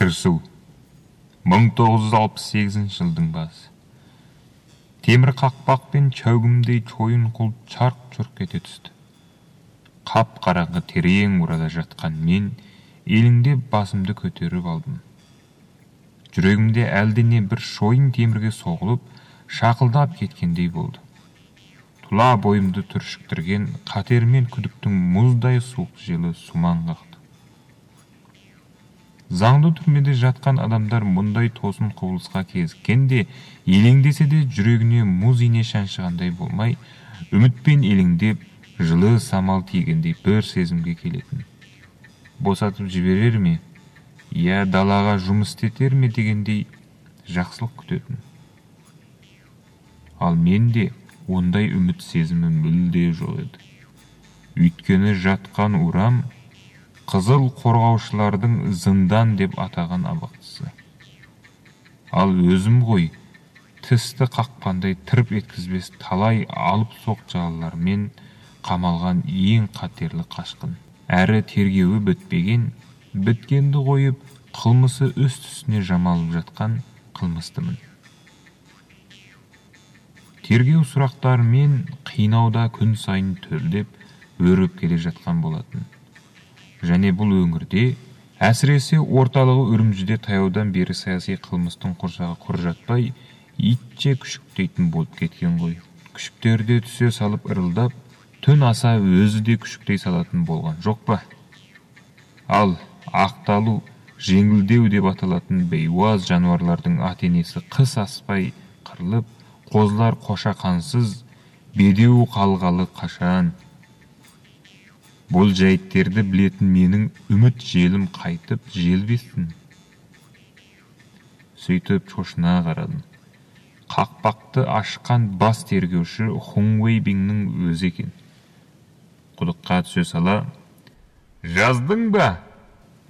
Кірісу 1968 жылдың басы. Темір қақпақ пен чәугімдей чойын құлып чарқ-чұрқ ете түсті. Қап-қараңғы терең урада жатқан мен еліңдеп басымды көтеріп алдым. Жүрегімде әлдене бір шойын темірге соғылып, шақылдап кеткендей болды. Тұла бойымды түршіктірген қатер мен күдіктің мұздай суық желі сумаң қақты. Заңды түрмеде жатқан адамдар мұндай тосын құбылысқа кезіккенде, елеңдесе де жүрегіне мұз ине шаншығандай болмай, үмітпен елеңдеп, жылы самал тигендей бір сезімге келетін. Босатып жіберер ме, я далаға жұмыс істетер ме дегендей жақсылық күтетін. Ал менде ондай үміт сезімі мүлде жоқ еді. Өйткені жатқан урам қызыл қорғаушылардың зындан деп атаған абақтысы. Ал өзім ғой, тісті қақпандай тырп еткізбес талай алып соқ жалалармен қамалған ең қатерлі қашқын. Әрі тергеуі бітпеген, біткенді қойып, қылмысы үст-үстіне жамалып жатқан қылмыстымын. Тергеу сұрақтарымен қинауда күн сайын төлдеп, өріп келе жатқан болатын. Және бұл өңірде, әсіресе орталығы Үрімжіде таяудан бері саяси қылмыстың құрсағы құр жатпай, итше күшіктейтін болып кеткен ғой. Күшіктерде түсе салып ырылдап, түн аса өзі де күшіктей салатын болған жоқ па? Ал ақталу, жеңілдеу деп аталатын бейуаз жануарлардың ат-енесі қыс аспай қырылып, қозылар қошақансыз, бедеу қалғалы қашан. Бұл жәйттерді білетін менің үміт желім қайтып желбесін. Сөйтіп шошына қарадым. Қақпақты ашқан бас тергеуші Хун Уэйбиңнің өзі екен. Құдыққа түсе сала, «Жаздың ба?»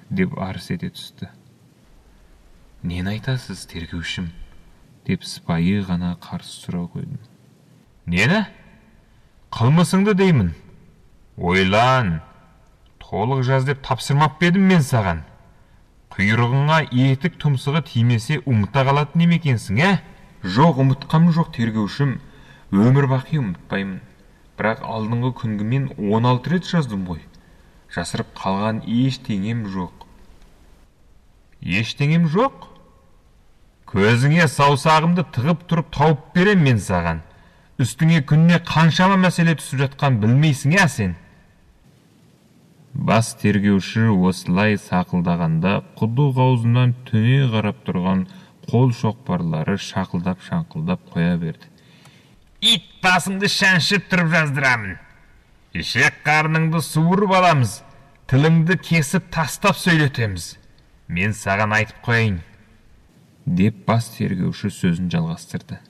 деп арс ете түсті. «Нені айтасыз, тергеушім?» деп сыпайы ғана қарсы сұрау қойдым. «Нені? Қылмысыңды деймін. Ойлан, толық жаз деп тапсырмап бедім мен саған. Құйрығыңа етік тұмсығы тимесе ұмыта қалатын емекенсің, ә?» «Жоқ, ұмытқам жоқ, тергеушім. Өмір бақи ұмытпаймын. Бірақ алдыңғы күнгімен 16 рет жаздым ғой. Жасырып қалған ештеңем жоқ». «Ештеңем жоқ? Көзіңе саусағымды тығып тұрып тауып берем мен саған. Үстіңе күнне қаншама мәселе түсіп жатқан білмейсің, ә сен?» Бас тергеуші осылай сақылдағанда құдық аузынан төне қарап тұрған қол шоқпарлары шақылдап-шаңқылдап қоя берді. «Ит басыңды шаншып тұрып жаздырамын. Ішек қарныңды суырып аламыз, тіліңді кесіп тастап сөйлетеміз. Мен саған айтып қойайын», деп бас тергеуші сөзін жалғастырды.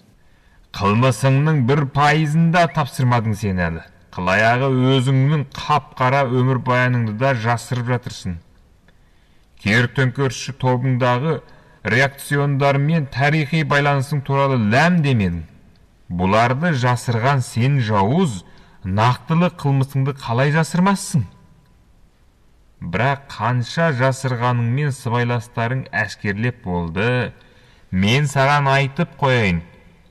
«Қылмысыңның 1%-ында тапсырмадың сен әлі. Қылаяғы өзіңнің қап-қара өмір баяныңды да жасырып жатырсың. Кер-төңкерісші тобыңдағы реакциондар мен тарихи байланысың туралы ләм демедің. Бұларды жасырған сен жауыз, нақтылы қылмысыңды қалай жасырмассың? Бірақ қанша жасырғаныңмен сыбайластарың әшкерлеп болды. Мен саған айтып қояйын,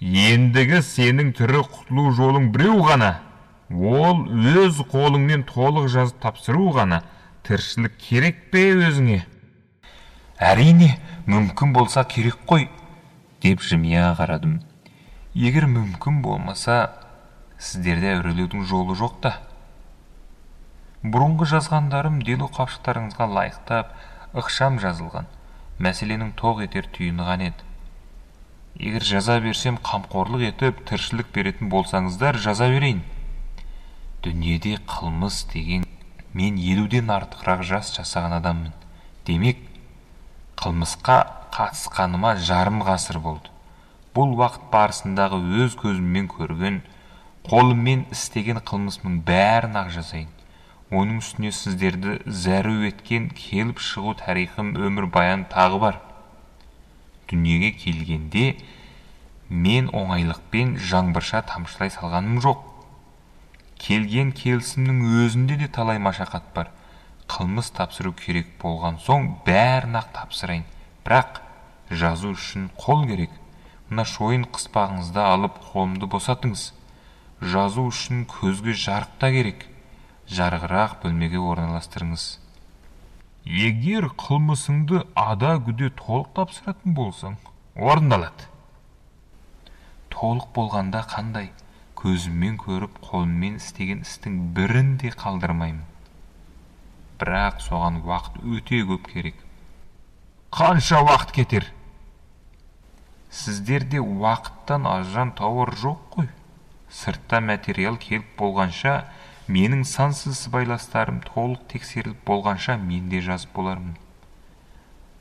ендігі сенің түрі құтылу жолың біреу ғана. Ол өз қолыңмен толық жазып тапсыру ғана. Тіршілік керек пе өзіңе?» «Әрине, мүмкін болса керек қой», деп жымия қарадым. «Егер мүмкін болмаса, сіздерде әурелеудің жолы жоқ та. Бұрынғы жазғандарым делу қапшықтарыңызға лайықтап, ықшам жазылған. Мәселенің тоқ етер түйіні ған еді. Егер жаза берсем, қамқорлық етіп, тіршілік беретін болсаңыздар, жаза берейін. Дүниеде қылмыс деген, мен 50-ден артығырақ жас жасаған адаммын. Демек, қылмысқа қатысқаныма жарым ғасыр болды. Бұл уақыт барысындағы өз көзіммен көрген, қолыммен істеген қылмысымның бәрін ақ жазайын. Оның үстіне сіздерді зәру еткен келіп шығу тарихым, өмір баян тағы бар. Дүниеге келгенде мен оңайлықпен жаңбырша тамшылай салғаным жоқ. Келген келісімнің өзінде де талай машақат бар. Қылмыс тапсыру керек болған соң бәрін ақ тапсырайын. Бірақ жазу үшін қол керек. Мына шойын қыспағыңызды алып қолымды босатыңыз. Жазу үшін көзге жарық та керек. Жарығырақ бөлмеге орналастырыңыз. Егер қылмысыңды ада-күде толық тапсыратын болсаң, орындалады. Толық болғанда қандай? Көзіммен көріп, қолыммен істеген істің бірін де қалдырмаймын. Бірақ соған уақыт өте көп керек. Қанша уақыт кетер? Сіздерде уақыттан ажырам тауар жоқ қой. Сыртта материал келіп болғанша, менің сансыз сыбайластарым толық тексеріліп болғанша мен де жазып болармын.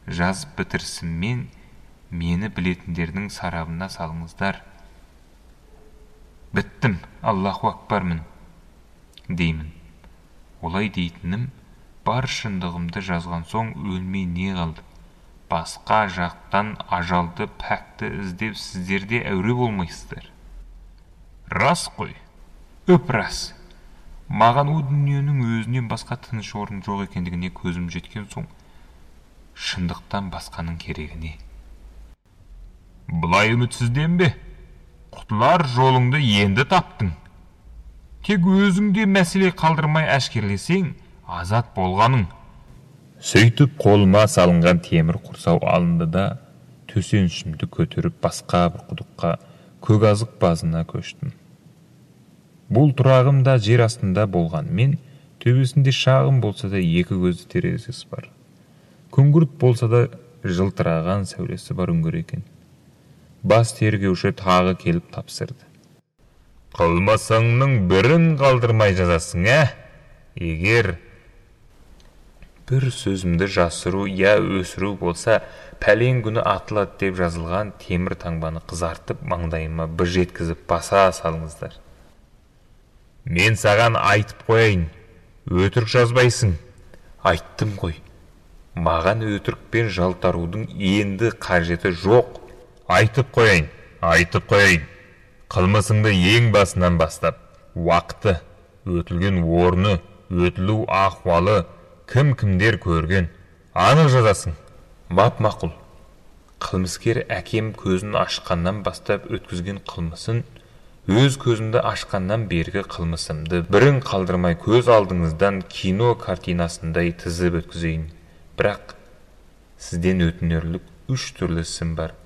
Жазып бітірсіммен мені білетіндердің сарабына салыңыздар. Біттім, Аллаху акбармын, деймін. Олай дейтінім, бар шындығымды жазған соң өлмей не қалды? Басқа жақтан ажалды пәкті іздеп сіздерде әуре болмайсыздар. Рас қой, өп рас. Маған о дүниенің өзінен басқа тыныш орын жоқ екендігіне көзім жеткен соң, шындықтан басқаның керегіне. Бұлай үмітсізденбе. Құтылар жолыңды енді таптың. Тек өзіңде мәселе қалдырмай әшкерлесең, азат болғаның. Сөйтіп қолыма салынған темір құрсау алынды да, төсенішімді көтеріп басқа бір құдыққа, көказық базына көштім. Бұл тұрағым да жер астында болғанмен, төбесінде шағын болса да екі көзді терезесі бар. Күңгірт болса да жылтыраған сәулесі бар үңгір екен. Бас тергеуші тағы келіп тапсырды. Қылмасаңның бірін қалдырмай жазасың, Егер бір сөзімді жасыру я өсіру болса, пәлен күні атылады деп жазылған темір таңбаны қызартып, маңдайыма бір жеткізіп баса салыңыздар. Мен саған айтып қояйын, өтірік жазбайсың. Айттым ғой, маған өтірікпен жалтарудың енді қажеті жоқ. Айтып қояйын. Қылмысыңды ең басынан бастап, уақыты, өтілген орны, өтілу ахуалы, кім-кімдер көрген, анық жазасың. Мап-мақұл. Қылмыскер әкем көзін ашқаннан бастап өткізген қылмысын, өз көзімді ашқаннан бергі қылмысымды бірін қалдырмай көз алдыңыздан кино картинасындай тізіп өткізейін. Бірақ сізден өтінерлік 3 түрлі ісім бар.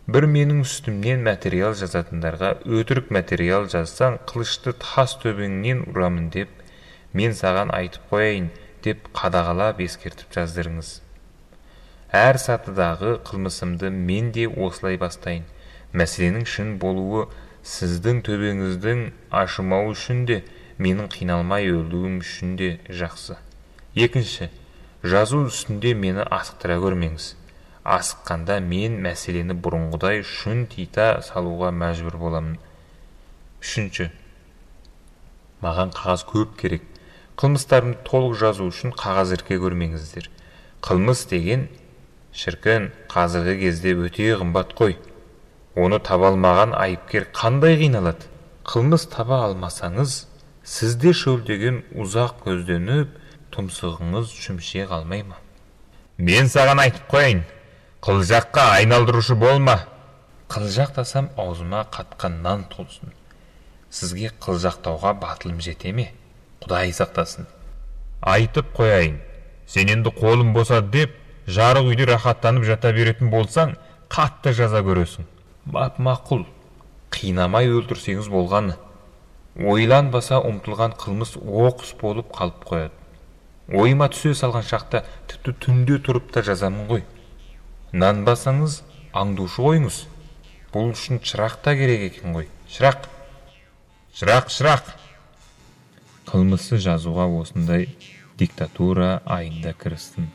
Бір менің үстімнен материал жазатындарға өтірік материал жазсаң, қылышты тас төбеңнен ұрамын деп, мен саған айтып қояйын деп қадағалап ескертіп жаздырыңыз. Әр сатыдағы қылмысымды мен де осылай бастайын. Мәселенің шын болуы сіздің төбеңіздің ашымау үшін де, менің қиналмай өлуім үшін де жақсы. Екінші, жазу үстінде мені асықтыра көрмеңіз. Асыққанда мен мәселені бұрынғыдай шын тита салуға мәжбүр боламын. Үшінші, маған қағаз көп керек. Қылмыстарымды толық жазу үшін қағаз ірке көрмеңіздер. Қылмыс деген, шіркін, қазіргі кезде өте қымбат қой. Оны таба алмаған айыпкер қандай қиналады? Қылмыс таба алмасаңыз, сізде шөлдеген ұзақ көзденіп, тұмсығыңыз шүмше қалмай ма? Мен саған айтып қояйын, қылжаққа айналдырушы болма. Қылжақтасам аузыма қатқан нан толсын. Сізге қылжақтауға батылым жете ме? Құдай сақтасын. Айтып қояйын, сен енді қолым босады деп, жарық үйде рахаттанып жата беретін болсаң, қатты жаза көресің. Мап-мақұл, қинамай өлтірсеңіз болғаны. Ойланбаса ұмтылған қылмыс оқыс болып қалып қояды. Ойыма түсе салған шақта тіпті түнде тұрып та жазамын ғой. Нанбасаңыз аңдушы қойыңыз. Бұл үшін шырақ та керек екен ғой. Шырақ. Қылмысты жазуға осындай диктатура айында кірістім.